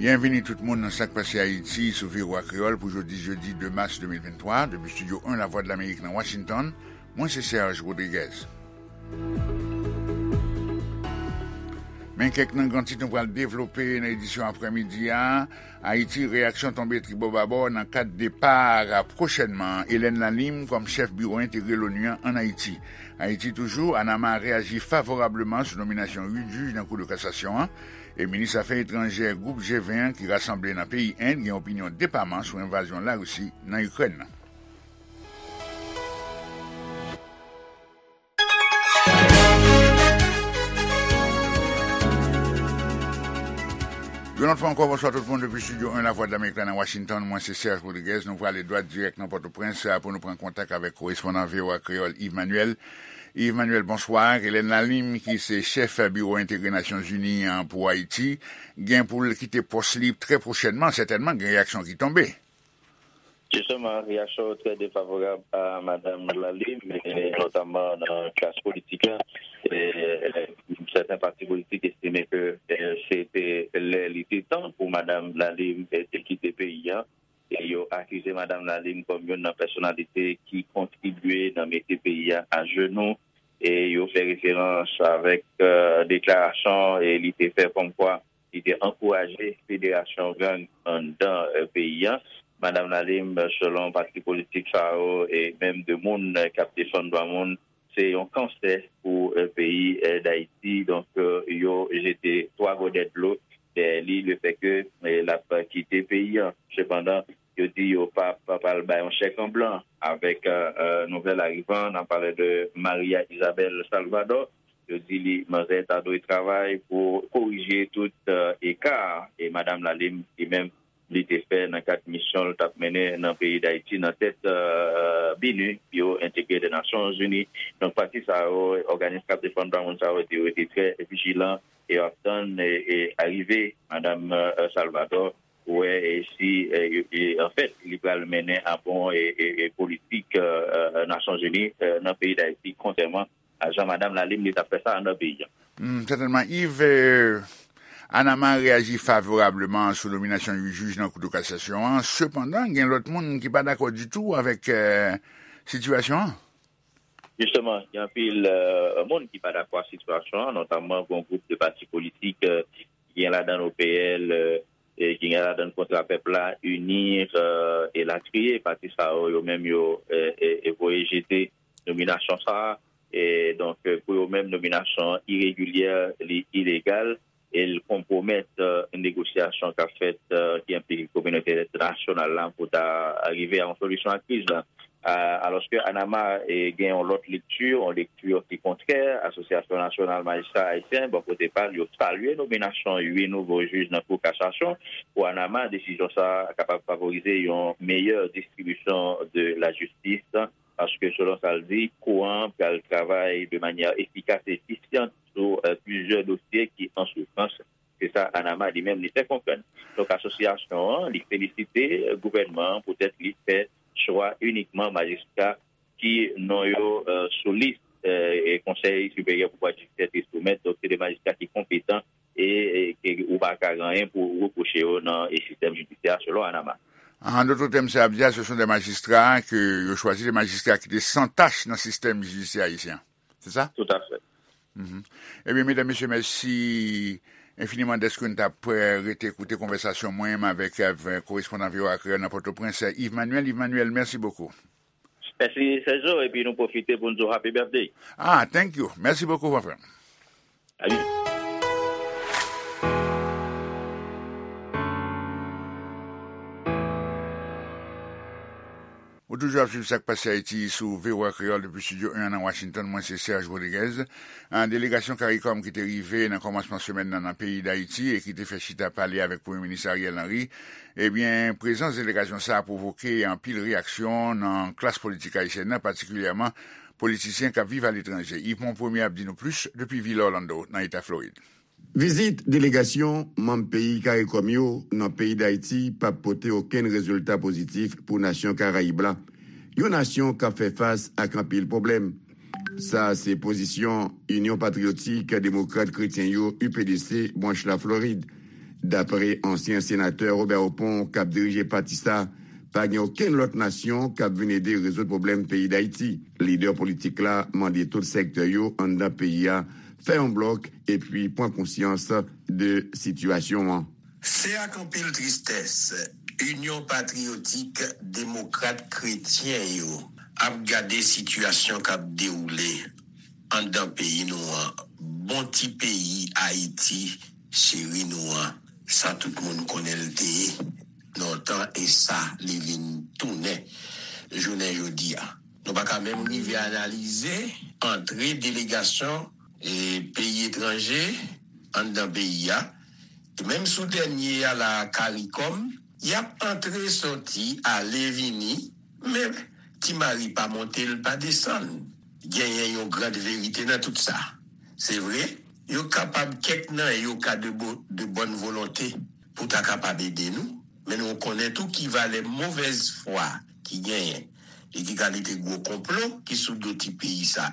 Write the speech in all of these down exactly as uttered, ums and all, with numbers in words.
Byenvini tout moun nan Sa k Pase Ayiti sou V O A Kreyòl pou jodi jedi de mas de mil venntwa, depi Estidyo en Lavwadlamerik nan Washington, mwen se Serge Rodriguez. Men kèk nan gran tit nou pral devlope nan edisyon aprèmidi a. Ayiti, reyaksyon tonbe tribòbabò nan kad depa pwochènman Hélène Lalim kòm chèf biwo entegre l'ONU an ann Ayiti. Ayiti toujou, Anama reyaji favorableman sou nominasyon uit jij nan Kou de Kasasyon an, e minis afè etranjè gwoup G ven an ki rasanble nan peyi End gen opinyon depaman sou envazyon Larisi nan Ikrèn nan. Yon lòt fwa ankò, bonswa tout moun depi Estidyo en Lavwadlamerik la nan Washington. Mwen se Serge Rodriguez. Nou prale dwat dirèk nan Pòtoprens pou nou pran kontak avèk korespondan V O A Kreyòl Yves Manuel. Yves Manuel, bonswa. Hélène Lalim, ki se chèf biwo entegre Nasyonzini an pou Ayiti, gen pou l kite pòs li trè pwochènman, sètènman gen reyaksyon ki tonbe. Jisteman, reyaksyon yo trè defavorab a Madam Lalim, e notaman nan klas politik la. E, e, sèten pati politik estime ke, e, se te lè, li te tan pou Madam Lalim, e, te kite peyi a. E yo akize Madam Lalim kòm youn nan pèsonalite ki kontribye nan mete peyi a ajenou. E yo fè referans avèk, e, deklarasyon, e, li te fè kòmkwa li te ankouraje federasyon gang anndan, e, peyi a. Madanm Lalim, selon pati politik sa yo, e menm de moun, e, k ap defann dwa moun, se yon kansè pou, e, peyi, e, Dayiti. Donk, e, yo jete twa gòdè dlo dèyè li, lefètke, e, l ap kite peyi a. Sepandan, yo di yo p ap pral bay yon chèk an blan avèk, e, e, nouvèl arivan. N ap pale de Maria Isabel Salvador. Yo di li, manzè ta dwe travay pou korije tout, e, eka, e Madanm Lalim, li menm, li te fè nan kad misyon l t ap mennen nan peyi Dayiti nan tèt, e, BINUH, Biwo Entegre de Nasyonzini. Donk, pati sa yo, òganis k ap defann dwa moun sa yo, di yo rete trè vijilan e yo ap tann, e, e arive Madanm, e, Salvador, pou wè, e, si, e, e, anfèt, li pral mennen a bon, e, e, e politik, e, e, Nasyonzini, e, nan peyi Dayiti, kontrèman a jan Madanm Lalim li t ap fè sa anndan peyi a. Hmm, sètènman, Yves, e, Anama reyaji favorableman sou nominasyon uit jij nan Kou de Kasasyon an. Sepandan, gen lòt moun ki pa dakò ditou avèk, e, sitiyasyon an. Jisteman, gen anpil, e, moun ki pa dakò ak sitiyasyon an, notaman yon gwoup de pati politik, e, ki gen ladan l O P L, e, e ki gen ladan l Kontra Pèp la, UNIR, e, elatriye. Pati sa yo, yo menm yo, e, e, e voye jete nominasyon sa a. E donk, e, pou yo menm, nominasyon an iregilyè, li ilegal, e l konpwomèt, e, negosyasyon k ap fèt, e, ki enplike kominote entènasyonal la pou ta rive a yon solisyon a kriz la. A, alòske Anama, e, gen yon lòt lekti, yon lekti ki kontrè. Asosyasyon Nasyonal Majistra Ayisyen, bò kote pa l, yo salye nominasyon uit nouvo jij nan Kou Kasasyon. Pou Anama, desizyon sa a kapab favorize yon meyè distribisyon de lajistis, paske selon sa l di, kou an pral travay de manyè efikas e efisyan sou, e, plizyè dosye ki an soufrans. Se sa Anama li menm li fè konprann. Donk, asosyasyon an, li felisite gouvènman an poutèt li fè chwa inikman majistra ki non yo, e, sou lis, e, e Konsèy Siperyè Pouvwa Jidisyè te soumèt. Donk, se de majistra ki konpetan e, e ke ou pa ka gen anyen pou repwoche yo nan, e, sistèm jidisyè a, selon Anama. An dòt tèm, sa ap di a, se son de majistra ke yo chwazi, de majistra ki te san tach nan sistèm jidisyè ayisyen. Se sa? Tout à fait. Mhm. Ebyen, medam, mesye, mèsi enfiniman dèske n t ap, e, rete koute konvèsasyon mwen menm avèk, avèk korespondan V O A Kreyòl nan Pòtoprens, Yves Manuel. Yves Manuel, mèsi bokou. Mèsi, Sergio, epi nou pwofite pou n di w happy birthday. Ah, thank you. Mèsi bokou, mon frè. Salut. Ou toujou ap swiv Sa k Pase Ayiti sou V O A Kreyòl depi Estidyo en an nan Washington. Mwen se Serge Rodriguez. An delegasyon CARICOM ki te rive nan kòmansman semèn nan nan peyi Dayiti e ki te fè chita pale avèk Premye Minis Ariel Henry, ebyen, prezans delegasyon sa a pwovoke anpil reyaksyon nan klas politik ayisyèn nan, patikilyèman politisyen k ap viv aletranje. Yves Monpremier ap di nou plis depi vil Orlando, nan eta Florid. Vizit delegasyon manm peyi CARICOM yo nan peyi Dayiti p ap pote okenn rezilta pozitif pou nasyon Karayib la, yon nasyon k ap fè fas ak anpil pwoblèm. Sa a se pozisyon Inyon Patriyotik Demokrat Kretyen yo, U P D C, branch Laflorid. Dapre ansyen senatè Robert Opont k ap dirije pati sa, pa gen okenn lòt nasyon k ap vin ede rezoud pwoblèm peyi Dayiti. Lidè politik la mande tout sektè yo anndan peyi a fè yon blòk epi pran konsyans de sitiyasyon an. Se ak anpil tristès, Inyon Patriyotik Demokrat Kretyen yo ap gade sitiyasyon k ap dewoule anndan peyi nou an, bon ti peyi Ayiti cheri nou an, sa tout moun konnen l te ye lontan e sa li vin tounen jounen jodi a. Nou pa ka menm rive analize antre delegasyon e peyi etranje anndan peyi a. E menm sou dènye a la, CARICOM, y ap antre, sòti, ale, vini, men ti mari pa monte, l pa desann. Genyen yon grand verite nan tout sa. Se vre, yo kapab kèk nan yo ka de bo- de bòn volonte pou ta kapab ede nou, men nou konnen tou ki valè movèz fwa ki genyen e ki kalite gwo konplo ki sou do ti peyi sa.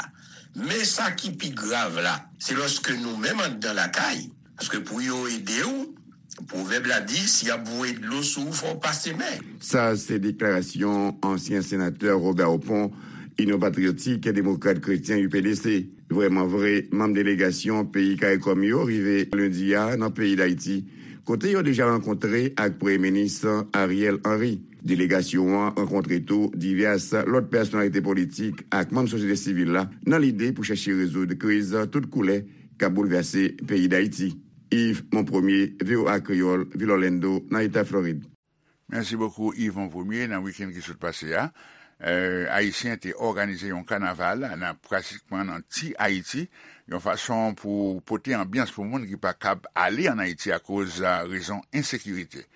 Men sa ki pi grav la, se lòske nou menm anndan lakay, paske pou yo ede w, pwovèb la di, si y ap voye dlo sou ou, fò w pase men. Sa se deklarasyon ansyen senatè Robert Opont, Inyon Patriyotik Demokrat Kretyen, U P D C. Vrèman vre, manm delegasyon peyi CARICOM yo rive lendi a nan peyi Dayiti, kote yo deja rankontre ak Premye Minis Ariel Henry. Delegasyon an rankontre tou divès lòt pèsonalite politik ak manm sosyete sivil la nan lide pou chèche rezoud kriz tout koulè k ap boulvèse peyi Dayiti. Yves Monpremier, V O A Kreyòl, vil Orlando, nan eta Florid. Mèsi bokou, Yves Monpremier. Nan wikenn ki sot pase a, eh, Ayisyen te òganize yon kanaval nan, pratikman nan ti Ayiti, yon fason pou pote anbyans pou moun ki pa kab ale ann Ayiti akoz, eh, rezon ensekirite.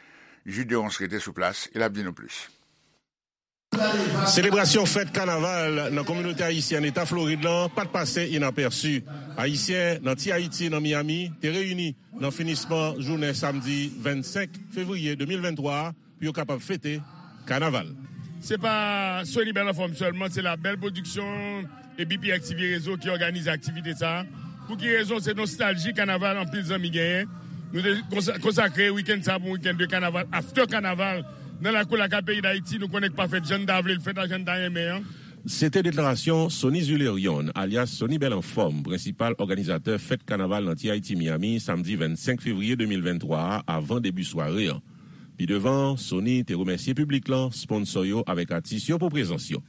Jude Deronce rete sou plas e l ap di nou plis. Selebrasyon fèt kanaval nan kominote ayisyèn eta Florid lan pa t pase inapèsi. Ayisyen nan Ti Ayiti nan Miami te reyini nan finisman jounen samdi vennsenk fevriye de mil venntwa a pou yo kapab fete kanaval. Se pa Sony Bèl Anfòm sèlman, se La Belle Production e B P X T V Réseau ki òganize aktivite sa a. Pou ki rezon? Se nostalji kanaval anpil zanmi genyen. Nou te konsa- konsakre wikenn sa a pou yon wikenn de kanaval, after kanaval, nan lakou lakay peyi Dayiti. Nou konnen k pa fèt jan n ta vle l fèt la, jan n ta renmen an. Se te deklarasyon Sony Zulerion, alyas Sony Bèl Anfòm, prensipal òganizatè fèt kanaval nan Ti Ayiti Miami, samdi vennsenk fevriye de mil venntwa a, avan debi sware an. Pi devan, Sony te remèsye piblik lan, sponsò yo avèk atis yo pou prezans yo.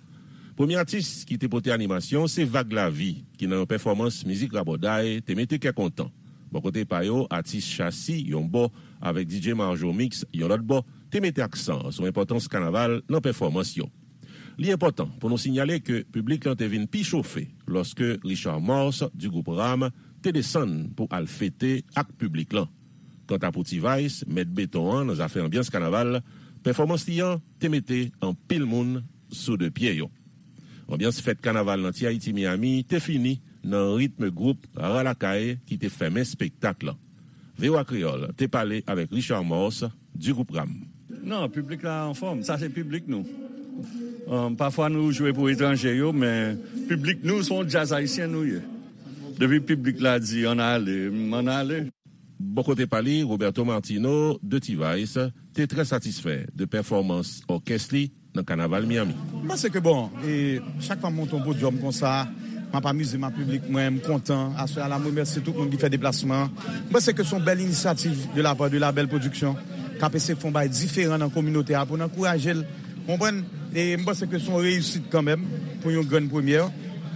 Premye atis ki te pote animasyon se Vag Lavi, ki nan yon pèfòmans mizik rabòday te mete kè kontan. Bò kote pa yo, atis Chasi, yon bò, avèk D J Marjo Mix, yon lòt bò, te mete aksan sou enpòtans kanaval nan pèfòmans yo. Li enpòtan pou nou sinyale ke piblik lan te vin pi chofe lòske Richard Morse di gwoup Ram te desann pou al fete ak piblik lan. Kanta pou T-Vice, mèt beton an nan zafè anbyans kanaval, pèfòmans li an te mete anpil moun sou de pye yo. Anbyans fèt kanaval nan Ti Ayiti Miami te fini nan ritm gwoup Rara Lakay ki te fèmen espektak lan. V O A Kreyòl te pale avèk Richard Morse di gwoup Ram. Non, piblik la anfòm. Sa se piblik nou. Um, pafwa nou jwe pou etranje yo, men piblik nou se yon djaz ayisyen nou ye. Depi piblik la di ann ale, m ann ale. Bò kote pa li, Roberto Martino de T-Vice te trè satisfè de pèfòmans òkès li nan kanaval Miami. M panse ke, bon, e, chak fwa m monte yon podyòm konsa, m ap amize m ak piblik mwen, m kontan. Aswè a la, m remèsye tout moun ki fè deplasman an. M panse ke se yon bèl inisyativ de la part de La Belle Production, k ap eseye fè yon bagay diferan nan kominote a pou n ankouraje l. Konprann? E m panse ke se yon reyisit kanmenm pou yon grenn premyè.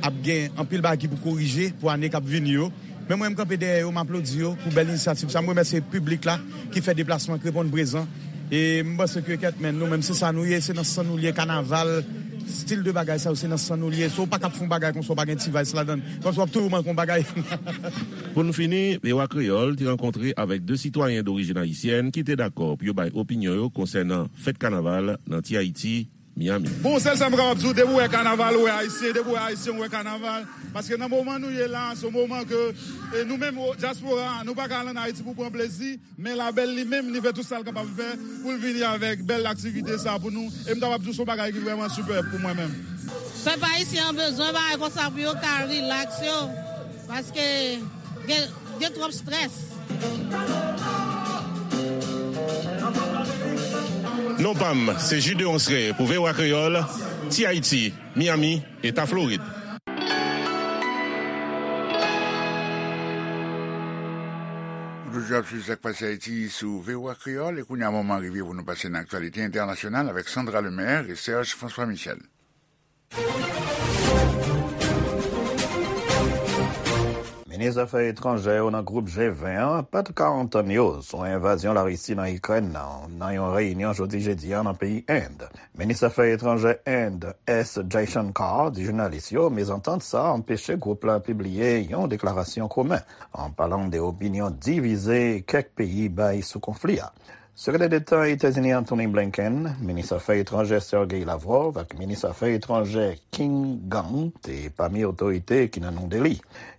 Ap gen anpil bagay ki pou korije pou ane k ap vini yo. Men mwen, m kanpe dèyè yo, m aplodi yo pou bèl inisyativ sa. M remèsye piblik la ki fè deplasman, ki reponn prezan. E m panse ke kèt men nou menm, se sa nou ye, se nan san nou li ye, kanaval, stil de bagay sa yo, se nan san nou li ye. Si w pa kab fè yon bagay konsa, w pa gen T-Vice ladan l. Kòmsi w ap toujou manke yon bagay. Pou n fini, V O A Kreyòl te rankontre avèk de sitwayen dorijin ayisyèn ki te dakò pou yo bay opinyon yo konsènan fèt kanaval nan Ti Ayiti, Miami. Bon, sèl sa m kapab di w, depi w wè kanaval, w wè ayisyen, depi w wè ayisyen, w wè kanaval. Paske nan moman nou ye la, se yon moman ke, e, nou menm, o, dyaspora, nou pa ka al ann Ayiti pou pran plezi, men Labèl li menm, li fè tout sa l kapab fè pou l vini avèk bèl aktivite sa pou nou. E m kapab di w se yon bagay ki vrèman sipèb pou mwen menm. Pèp ayisyen an bezwen bagay konsa pou yo ka rilaks yo, paske gen, gen twòp strès. Non pa m, se Jude Onsre pou V O A Kreyòl, Ti Ayiti, Miami, Eta Florid. Nou toujou ap swiv sa k pase Ayiti sou V O A Kreyòl, e kounye a moman rive pou nou pase nan aktyalite entènasyonal avèk Sandra Lemaire e Serge François Michel. Minis afè etranjè yo nan gwoup G ven an pa t ka antann yo sou envazyon Larisi nan Ikrèn nan, nan yon reyinyon jodi jedi a nan peyi End. Minis afè etranjè End, S Jaishankar, di jounalis yo mezantant sa a anpeche gwoup la pibliye yon deklarasyon komen, an palan de opinyon divize kèk peyi bay sou konfli a. Sekretè Deta Etazini Antony Blinken, minis afè etranjè Sergey Lavrov ak minis afè etranjè Qin Gang te pami otorite ki nan New Delhi.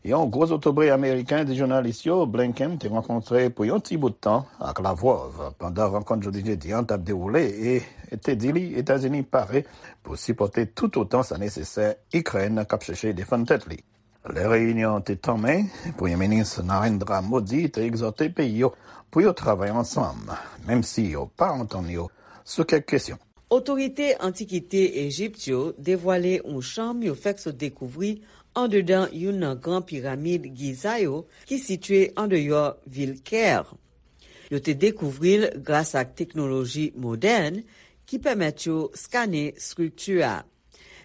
Yon gwo zotobre ameriken di jounalis yo Blinken te rankontre pou yon ti bout tan ak Lavrov pandan rankont jodi jedi an t ap dewoule e te di li Etazini pare pou sipòte toutotan sa nesesè Ikrèn k ap chèche defann tèt li. Lè reyinyon an te tanmen, Premye Minis Narendra Modi te egzòte peyi yo pou yo travay ansanm, menm si yo pa antann yo sou kèk kesyon. Otorite antikite Ejip yo devwale yon chanm yo fèk sot dekouvri andedan youn nan gran piramid Giza yo ki sitye andeyò vil Kè. Yo te dekouvri l gras ak teknoloji modèn ki pèmèt yo skane estrikti a.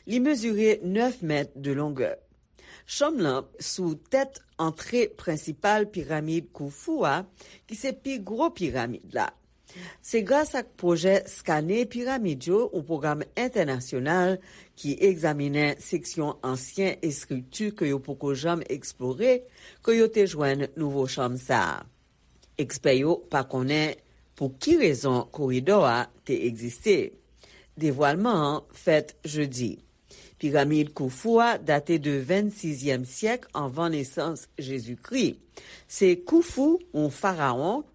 Li mezire nèf mèt de longè. Chanm lan sou tèt antre prensipal piramid Khufu a, ki se pi gwo piramid la. Se gras ak pwojè Skane Piramid yo, yon pwogram entènasyonal ki egzaminen seksyon ansyen estrikti ke yo poko janm eksplore, ke yo te jwenn nouvo chanm sa a. Ekspè yo pa konnen pou ki rezon koridò a te egziste. Devwalman an fèt jedi. Piramid Khufu a date de vennsizyèm syèk anvan nesans Jezikri. Se Khufu, yon farawon,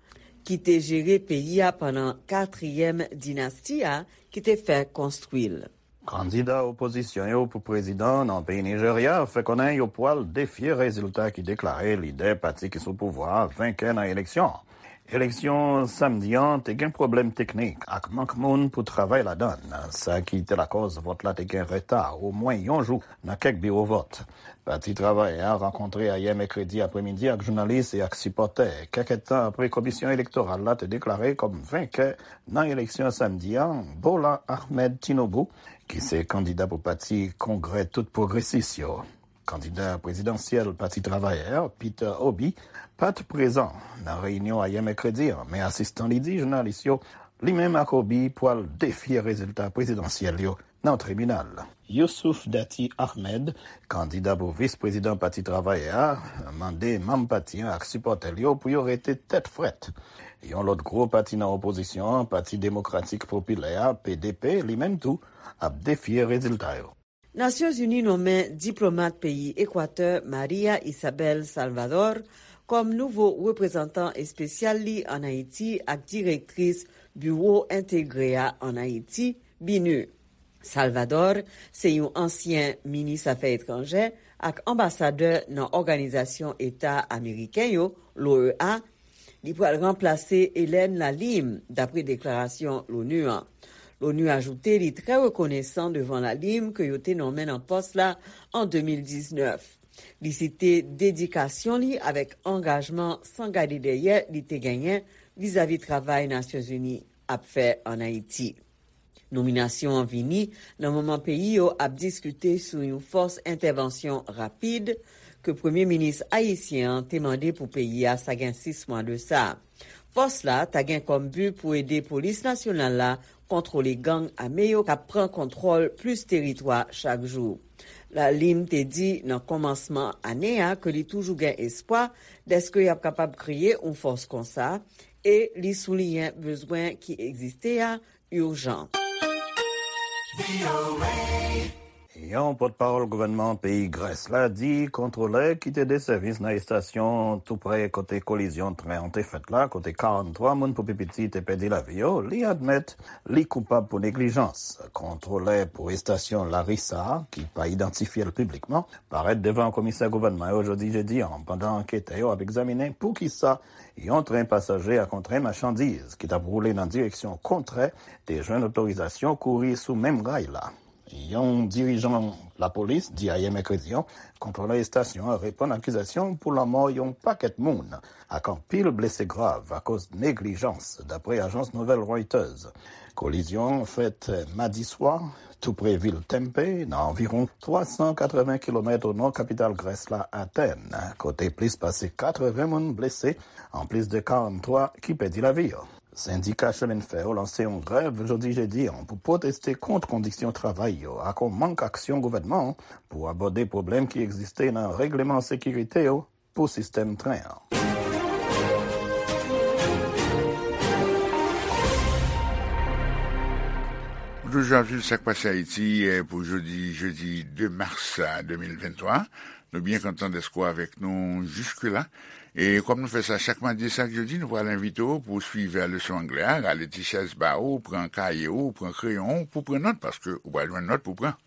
ki te jere peyi a pandan katriyèm dinasti a, ki te fè konstwi l. Kandida opozisyon yo pou prezidan nan peyi Nijerya fè konnen yo pwal defye rezilta ki deklare lidè pati ki sou pouvwa a venkè nan eleksyon an. Eleksyon samdi an te gen pwoblèm teknik ak mank moun pou travay ladan l, sa ki te lakòz vòt la te gen reta omwen yon jou nan kèk biwo vòt. Pati Travayè a rankontre ayè mèkredi apremidi ak jounalis e ak sipòtè, kèk èdtan apre Komisyon Elektoral la te deklare kòm venkè nan eleksyon samdi an Bola Ahmed Tinubu, ki se kandida pou pati Kongrè Tout Pwogresis yo. Kandida prezidansyèl Pati Travayè a, Peter Obi, pa t prezan nan reyinyon ayè mèkredi an, men asistan li di jounalis yo li menm ak Obi pwal defye rezilta prezidansyèl yo nan tribinal. Youssouf Datti Ahmed, kandida pou vis prezidan Pati Travayè a, mande manm pati an ak sipòtè l yo pou yo rete tèt frèt. Yon lòt gwo pati nan opozisyon an, Pati Demokratik Popilè a, P D P, li menm tou, ap defye rezilta yo. Nasyonzini nonmen diplomat peyi Ekwatè Maria Isabel Salvador kòm nouvo reprezantan espesyal li ann Ayiti ak direktris Biwo Entegre a ann Ayiti, BINUH. Salvador se yon ansyen minis afè etranjè ak anbasadè nan Òganizasyon Eta Ameriken yo, l'O E A, Li pral ranplase Hélène Lalime, dapre deklarasyon l'ONU an. L'ONU ajoute li trè rekonesan devan Lalime ke yo te nonmen nan pòs la an de mil diznèf. Li site dedikasyon li avèk angajman san gade dèyè li te genyen vizavi travay Nasyonzini ap fè ann Ayiti. Nominasyon an vini nan moman peyi yo ap diskite sou yon fòs entèvansyon rapid ke premye minis ayisyen an te mande pou peyi a sa gen sis mwa de sa. Fòs la ta gen kòm bi pou ede polis nasyonal la kontwole gang ame yo k ap pran kontwòl plis teritwa chak jou. Lalime te di nan kòmansman ane a ke li toujou gen espwa dèske y ap kapab kreye yon fòs konsa e li souliyen bezwen ki egziste a ijan. Yon pòtpawòl gouvènman peyi Grès la di kontwolè ki te de sèvis nan estasyon tou prè kote kolizyon tren an te fèt la, kote karannntwa moun pou pi piti te pèdi lavi yo, li admèt li koupab pou neglijans. Kontwolè pou estasyon Larissa, ki pa idantifye l piblikman, parèt devan komisè gouvènman yo jodi jedi an, pandan anketè yo ap egzaminen poukisa yon tren pasaje ak yon tren machandiz ki t ap woule nan direksyon kontrè te jwenn otorizasyon kouri sou menm ray la. Yon dirijan lapolis di ayè mèkredi an, kontwolè estasyon an reponn akizasyon pou lanmò yon pakèt moun ak anpil blese grav akoz neglijans, dapre ajans nouvèl Reuters. Kolizyon an fèt madi swa, tou pre vil Tempe, nan anviwon twa san katreven kilomèt o nò kapital Grès la, Atèn, kote plis pase katreven moun blese, anplis de karannntwa ki pèdi lavi yo. Sendika chemenfè yo lanse yon grèv jodi jedi an pou pwoteste kont kondisyon travay yo ak yon mank aksyon gouvènman an pou abòde pwoblèm ki egziste nan regleman sekirite yo pou sistèm tren an. Ou toujou ap swiv Sa k Pase Ayiti, eh, pou jodi, jedi de mas, eh, de mil venntwa. Nou byen kontan dèske w avèk nou jiskela. E kòm nou fè sa chak madi e chak jedi, nou pral envite w pou w swiv leson anglè a, rale ti chèz ba ou, pran kaye ou, pran kreyon ou, pou pran nòt, paske ou pral jwenn nòt pou pran.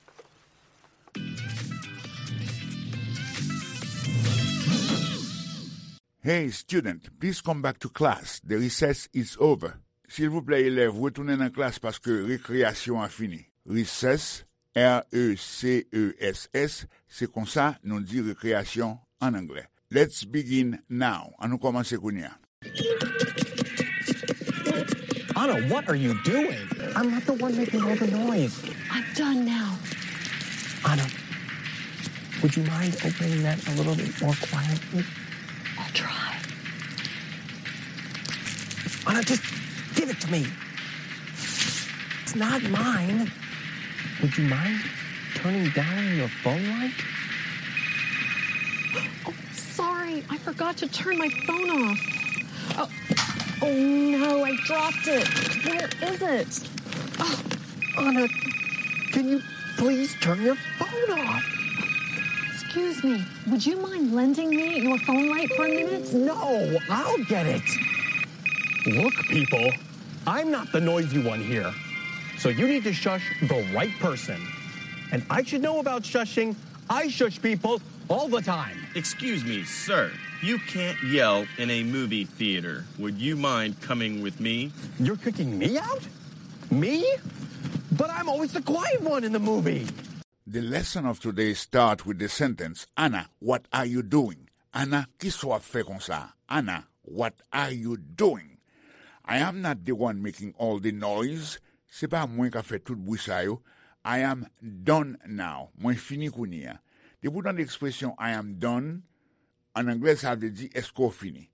Hey, student, please come back to class. The recess is over. Silvouplè, elèv, retounen nan klas paske rekreyasyon an fini. Recess, R E C E S S, se konsa nou di rekreyasyon an anglè. Let's begin now. An nou kòmanse kounye a. Anna, what are you doing? I'm not the one making all the noise. I'm done now. Anna, would you mind opening that a little bit more quietly? I'll try. Anna, just give it to me. It's not mine. Would you mind turning down your phone light? Oh, sorry. I forgot to turn my phone off. Oh, oh no, I dropped it. Where is it? Oh, Anna, can you please turn your phone off? Excuse me, would you mind lending me your phone light for a minute? No, I'll get it. Look, people, I'm not the noisy one here. So you need to shush the right person. And I should know about shushing. I shush people all the time. Excuse me, sir. You can't yell in a movie theater. Would you mind coming with me? You're kicking me out? Me? But I'm always the quiet one in the movie. The lesson of today start with the sentence, Anna, what are you doing? Anna, kisa w ap fè konsa? Anna, what are you doing? I am not the one making all the noise. Se pa mwen k ap fè tout bri sa yo. I am done now. Mwen fini kounye a. Depi w tande ekspresyon I am done, an anglè, sa vle di, èske w fini?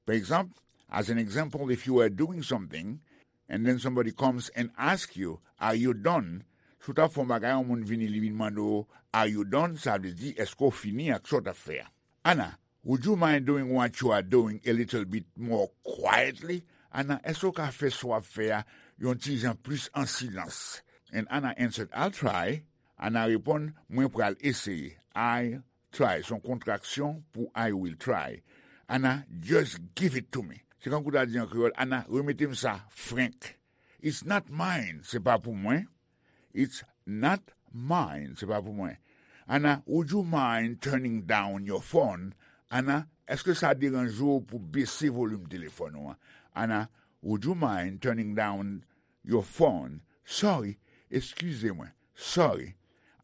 Pa egzanp, as an example, if you were doing something, and then somebody comes and ask you, are you done? Si w t ap fè yon bagay, yon moun vini, li vin mande w, are you done? Sa vle di, èske w fini ak sa w t ap fè a? Anna, would you mind doing what you are doing a little bit more quietly? Anna, èske w ka fè sa w ap fè a yon ti jan plis an silans? And Anna answered, I'll try. Anna reponn, mwen pral eseye. I try, se yon kontraksyon pou I will try. Anna, just give it to me. Se kankou w ta di an kreyòl, Anna, remete m sa frenk. It's not mine, se pa pou mwen. It's not mine, se pa pou mwen. Anna, would you mind turning down your phone? Anna, èske sa deranje w pou bese volim telefòn ou an? Anna, would you mind turning down your phone? Sorry, eskize mwen. Sorry.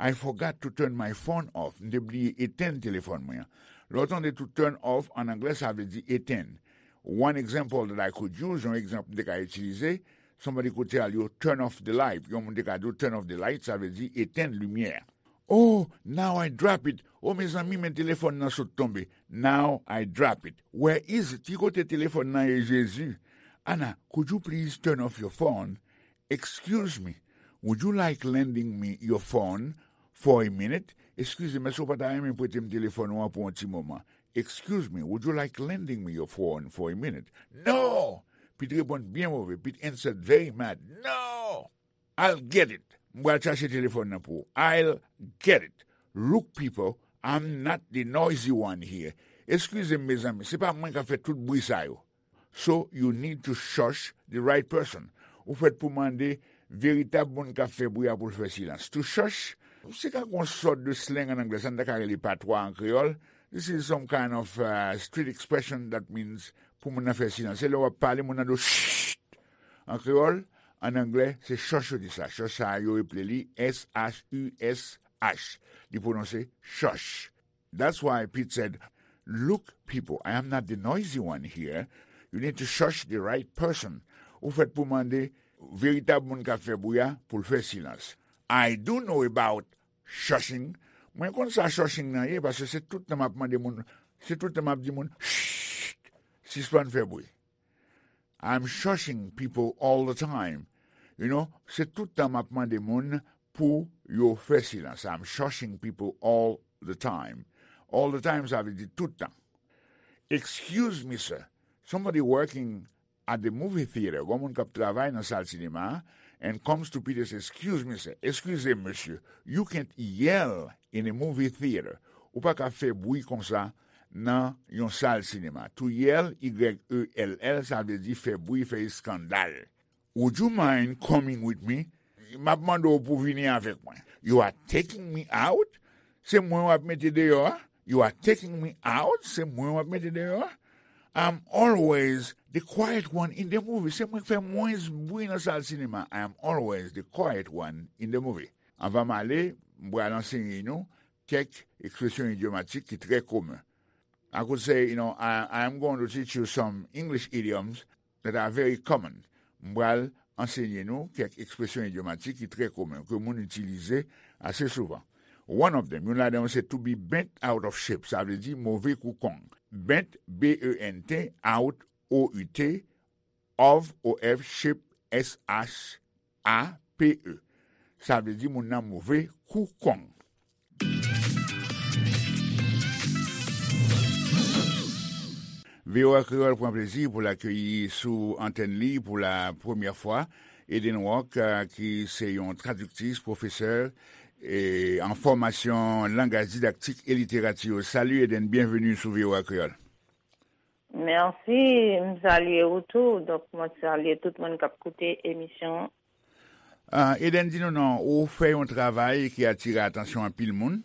I forgot to turn my phone off. M te bliye etenn telefòn mwen an. Lè w tande to turn off, an anglè, sa vle di etenn. One example that I could use, yon egzanp m te ka itilize, somebody could tell you, turn off the light. Yon moun te ka di w, turn off the light, sa vle di etenn limyè a. Oh, now I drop it. Oh, mezanmi, men telefòn nan sot tonbe. Now I drop it. Where is it? Ki kote telefòn nan ye, Jezi? Anna, could you please turn off your phone? Excuse me, would you like lending me your phone for a minute? Eskize m, èske w pa ta renmen prete m telefòn ou an pou yon ti moman? Excuse me, would you like lending me your phone for a minute? No! Pete reponn byen move. Pete answered very mad. No! I'll get it. M pral chache telefòn nan pou ou. I'll get it. Look, people, I'm not the noisy one here. Eskize m, mezanmi, se pa mwen k ap fè tout bri sa yo. So, you need to shush the right person. Ou fèt pou mande veritab moun k ap fè bri a pou l fè silans. To shush, se ka yon sòt de slang an anglè, sa n ta ka rele patwa an kreyòl. This is some kind of uh, street expression that means pou moun nan fè silans. Se lè w ap pale, moun nan di w, "Shh!" An kreyòl, an anglè, se shush yo di sa. Shush sa yo eple li S H U S H. Li pwononse shush. That's why Pete said, "Look, people, I am not the noisy one here. You need to shush the right person." Ou fèt pou mande veritab moun k ap fè bri a pou l fè silans. I do know about shushing. Mwen konn sa shushing nan ye, paske se tout tan m ap mande moun, se tout tan m ap di moun, "Shh, sispann fè bri." I'm shushing people all the time. You know, se tout tan m ap mande moun pou yo fè silans. I'm shushing people all the time. All the time, sa vle di tout tan. "Excuse me, sir. Somebody working at the movie theater." Gon moun k ap travay nan sal sinema a, and comes to Peter, say, "Excuse me, sir." Eskize m, mesye. You can't yell in a movie theater. Ou pa ka fè bri konsa nan yon sal sinema. To yell, Y E L L, sa vle di fè bri, fè eskandal. "Would you mind coming with me?" M ap mande w pou vini avèk mwen. "You are taking me out?" Se mwen w ap mete deyò a? "You are taking me out?" Se mwen w ap mete deyò a? "I'm always the quiet one in the movie." Se mwen k fè mwens bri nan sal sinema. "I am always the quiet one in the movie." Anvan m ale, m pral ansenye nou kèk ekspresyon idyomatik ki trè komen. I could say, you know, I, I am going to teach you some English idioms that are very common. M pral ansenye nou kèk ekspresyon idyomatik ki trè komen, ke moun itilize ase souvan. One of them, youn ladan yo se to be bent out of shape, sa vle di move kou kong. Bent, B E N T, out, O U T, of, O F, shape, S H A P E. Sa vle di moun nan move kou kong. V O A Kreyòl pran plezi pou l akeyi sou antèn li pou la premyè fwa Eden Rock, eh, ki se yon tradiktris, pwofesè, e an fòmasyon langaj didaktik e literati yo. Salut Eden, byenveni sou V O A Kreyòl. Mèsi, m salye ou tou. Donk, mwen salye tout moun k ap koute emisyon an. Ah, Eden, di nou non, ou fè yon travay ki atire atansyon anpil moun,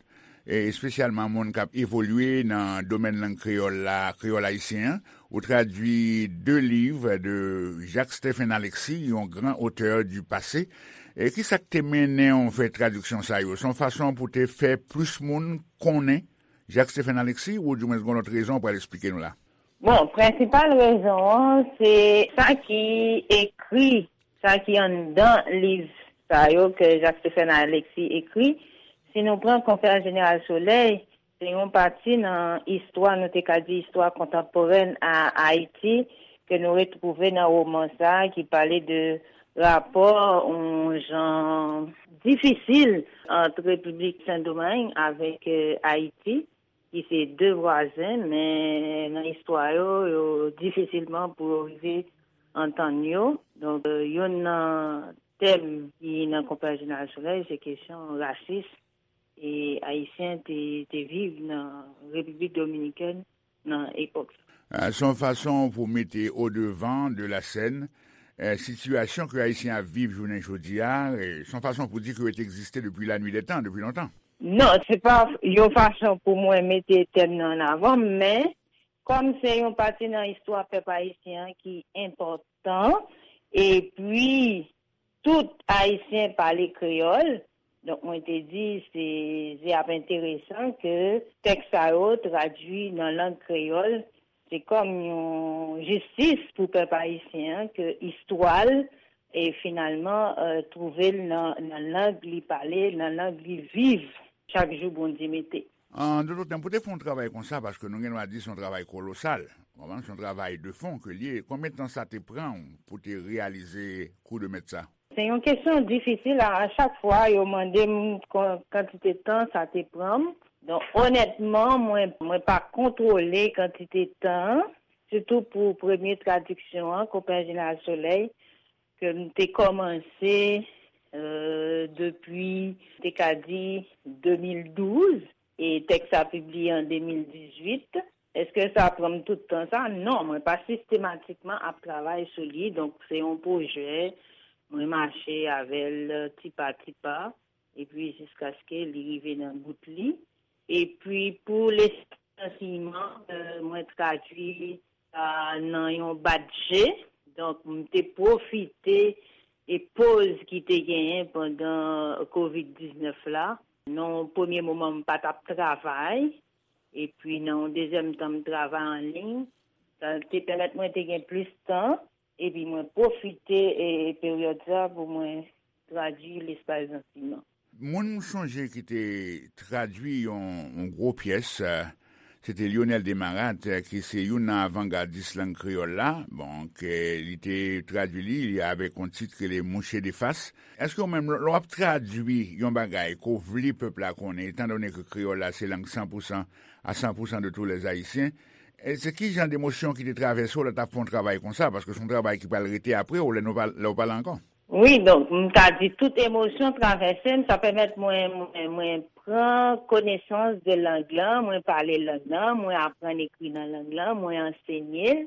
e espesyalman moun k ap evolye nan domèn lang kreyòl la, kreyòl ayisyen an. Ou tradui de liv de Jacques Stephen Alexis, yon gran otè du passé. E ki sa k te mennen w fè tradiksyon sa yo? Se yon fason pou te fè plis moun konnen Jacques Stephen Alexis, ou dimwens gen yon lòt rezon ou pral eksplike nou la? Bon, prensipal rezon an, se sa ki ekri, sa ki anndan liv sa yo ke Jacques Stephen Alexis ekri. Si nou pran Conférence Générale Soleil, se yon pati nan istwa, nou te ka di istwa kontanporèn a Ayiti, ke nou retwouve nan woman sa a ki pale de rapò yon jan difisil ant Repiblik Sendomeng avèk, eh, Ayiti, ki se de vwazen, men nan istwa yo, yo difisilman pou yo rive antann yo. Donk, eh, youn nan tèm ki nan Konferans Jeneral Solèy, se kesyon rasis e Ayisyen te, te viv nan Repiblik Dominikèn nan epòk sa. Ah, se yon fason pou mete au devant de la scène, eh, sitiyasyon ke Ayisyen ap viv jounen jodi a, eh, se yon fason pou di ke yo te egziste depi la nuit des temps, depi lontan. Non, se pa yon fason pou mwen mete tèm nan an avan, men kòm se yon pati nan istwa pèp ayisyen an ki enpòtan, epi tout Ayisyen pale kreyòl. Donk, mwen te di, se, se ap enteresan ke tèks sa yo tradui nan lang kreyòl. Se kòm yon jistis pou pèp ayisyen an, ke istwa l, e finalman, eh, twouve l nan, nan lang li pale, nan lang li viv chak jou Bondye mete. An dòt tèm, pou te fè yon travay konsa, paske nou gen dwa di se yon travay kolosal, w konprann, se yon travay de fon ke l ye. Konbyen tan sa te pran w pou te reyalize kou de mèt sa? Se yon kesyon difisil. A, a chak fwa, yo mande m kon-, kantite tan sa te pran m. Donk, onètman, mwen, mwen pa kontwole kantite tan an, sitou pou premye tradiksyon an, Konpè Jeneral Solèy, ke m te kòmanse euh, depi, te ka di, de mil douz, e tèks sa pibliye an de mil dizuit. Èske sa pran m tout tan sa? Non, mwen pa sistematikman ap travay sou li. Donk, se yon pwojè, mwen mache avè l ti pa ti pa, epi jiskaske li rive nan bout li. Epi, pou Lespri Ansèyman, euh, mwen tradui sa nan yon badje. Donk, m te pwofite e poz ki te genyen pandan kovid diznèf la. Nan yon premye moman, m pa t ap travay. Epi, nan yon dezyèm tan, m travay an liy. Sa te pèmèt mwen te gen plis tan. Epi, mwen pwofite e, e peryòd sa pou mwen tradui Lespri Ansèyman. Moun m sonje ki te tradui yon, yon gwo pyès, eh, se te Lyonel Desmarattes, eh, ki se youn nan avangadis lang kreyòl la. Bon, ke li te tradui li, li avèk yon tit ki rele Mouche de Fas. Èske ou menm, lè w ap tradui yon bagay ke w vle pèp la konnen, etandone ke kreyòl la se lang san pou san, à cent pour cent de tous les Haïtiens, e se ki jan de emosyon ki te travèse w lè w t ap fè yon travay konsa? Paske se yon travay ki pral rete apre w, lè nou pa, lè w pa la ankò. Wi, donk, m ta di tout emosyon travèse m, sa pèmèt mwen, mwen, mwen pran konesans de lang lan, mwen pale lang lan, mwen aprann ekri nan lang lan, mwen ansenye l.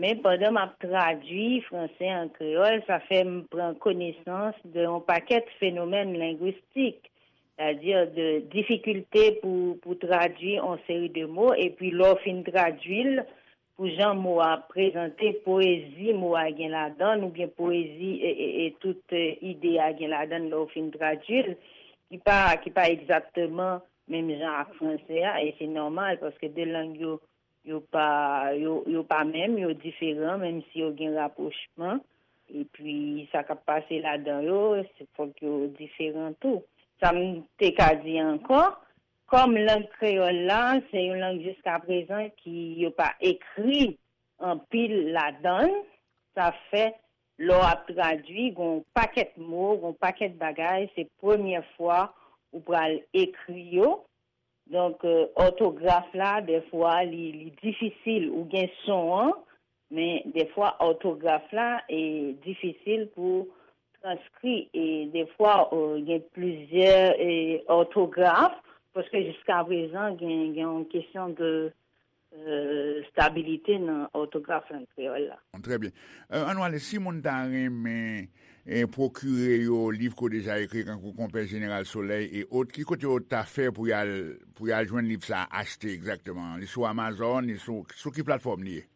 Men pandan m ap tradui franse an kreyòl, sa fè m pran konesans de yon pakèt fenomèn lengwistik, sètadi de difikilte pou, pou tradui yon seri de mo, epi lè w fin tradui l, pou jan mo a prezante, poezi mo a gen ladan l, oubyen poezi e, e, e tout, e, ide a gen ladan l lè w fin tradui l, ki pa, ki pa egzakteman menm jan ak franse a, e se nòmal, paske de lang yo, yo pa, yo, yo pa menm, yo diferan, menm si yo gen rapwochman. Epi, sa k ap pase ladan yo, se, fòk yo diferan tou. Sa m te ka di ankò, kòm lang kreyòl la, se yon lang jiskaprezan ki yo pa ekri anpil ladan l, sa fè, lè w ap tradui, gen yon pakèt mo, gen yon pakèt bagay, se premyè fwa ou pral ekri yo. Donk, euh, òtograf la, dèfwa, li, li difisil. Ou gen son an, men dèfwa, òtograf la, e difisil pou transkri. E dèfwa, euh, gen plizyè, e, òtograf, paske jiskaprezan, gen, gen yon kesyon de, euh, stabilite nan òtograf lang kreyòl la. Trè byen. Euh, ann ale, si moun ta renmen, e, pwokire yo liv ke w deja ekri, kankou Konpè Jeneral Solèy e ot, ki kote yo ta fè pou y al, pou y al jwenn liv sa a, achte egzakteman? Li sou Amazon, li sou, sou ki platfòm li ye?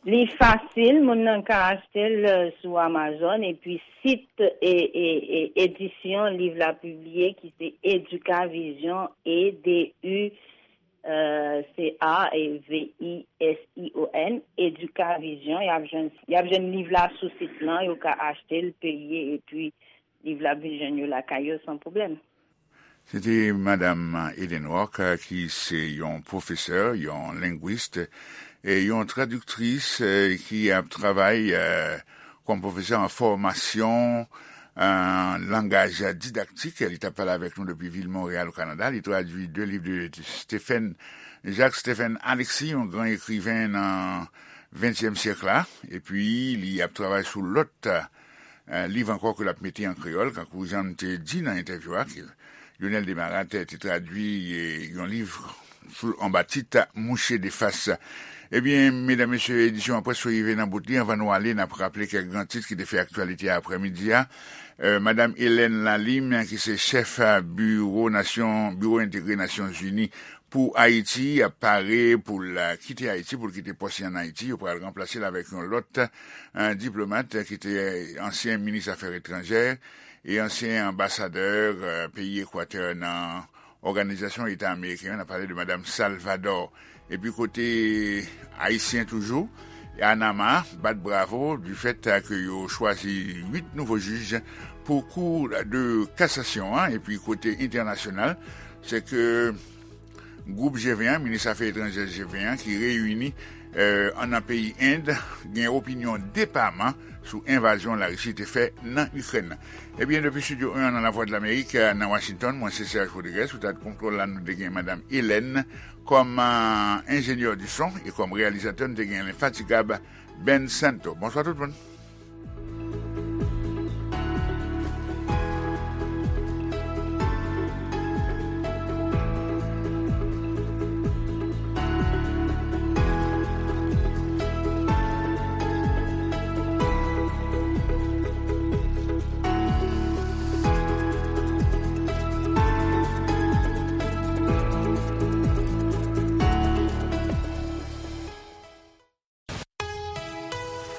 Li fasil, moun nan ka achte l, euh, sou Amazon, epi sit e, e, e edisyon liv la pibliye, ki se Educavision, E D U, euh, C A V I S I O N, Educavision, y ap jwenn, y ap jwenn liv la sou sit lan, yo ka achte l, peye, epi liv la ap vin jwenn yo lakay yo san pwoblèm. Se te Madam Eden Rock, ki se yon pwofesè, yon lengwis, e yon tradiktris, e ki ap travay, e, kòm pwofesè an fòmasyon, an langaj didaktik. Li t ap pale avèk nou depi vil Monreyal, o Kanada. Li tradui de liv de Stephen, Jacques Stephen Alexis, yon gran ekriven nan ventyèm syèk la. Epi, li ap travay sou lòt, e, liv ankò ke l ap mete an kreyòl, kankou jan m te di nan entèvyou a, ke Lyonel Desmarattes te tradui, e, yon liv sou, anba tit Mouche de Fas. Ebyen, medam, mesye, edisyon an prèske rive nan bout li. Anvan nou ale, n ap raple kèk gran tit ki te fè aktyalite aprèmidi a. E, Madam Hélène Lalime, ki se chèf, e, biwo Nasyon, Biwo Entegre Nasyonzini pou Ayiti, ap pare pou l, e, kite Ayiti, pou l kite pòs li ann Ayiti. Yo pral ranplase l avèk yon lòt, e, diplomat, e, ki te ansyen minis afè etranjè e ansyen anbasadè, e, peyi Ekwatè nan Òganizasyon Eta Ameriken an, n ap pale de Madam Salvador. Epi kote ayisyen toujou, Anama bat bravo du fait ke yo chwazi uit nouvo jij pou Kou de Kasasyon an. Epi kote entènasyonal, se ke gwoup G ven an, minis afè etranjè G ven an, ki reyini, e, an nan peyi End, gen opinyon depaman sou envazyon Larisi te fè nan Ikrèn. Ebyen, depi Estidyo en an nan Lavwadlamerik, nan Washington, mwen se Serge Rodriguez, sou tèt kontwòl la, nou te gen Madam Hélène kòm, e, enjenyè di son, e kòm reyalizatè, nou te gen lenfatigab Ben Santo. Bonswa tout moun.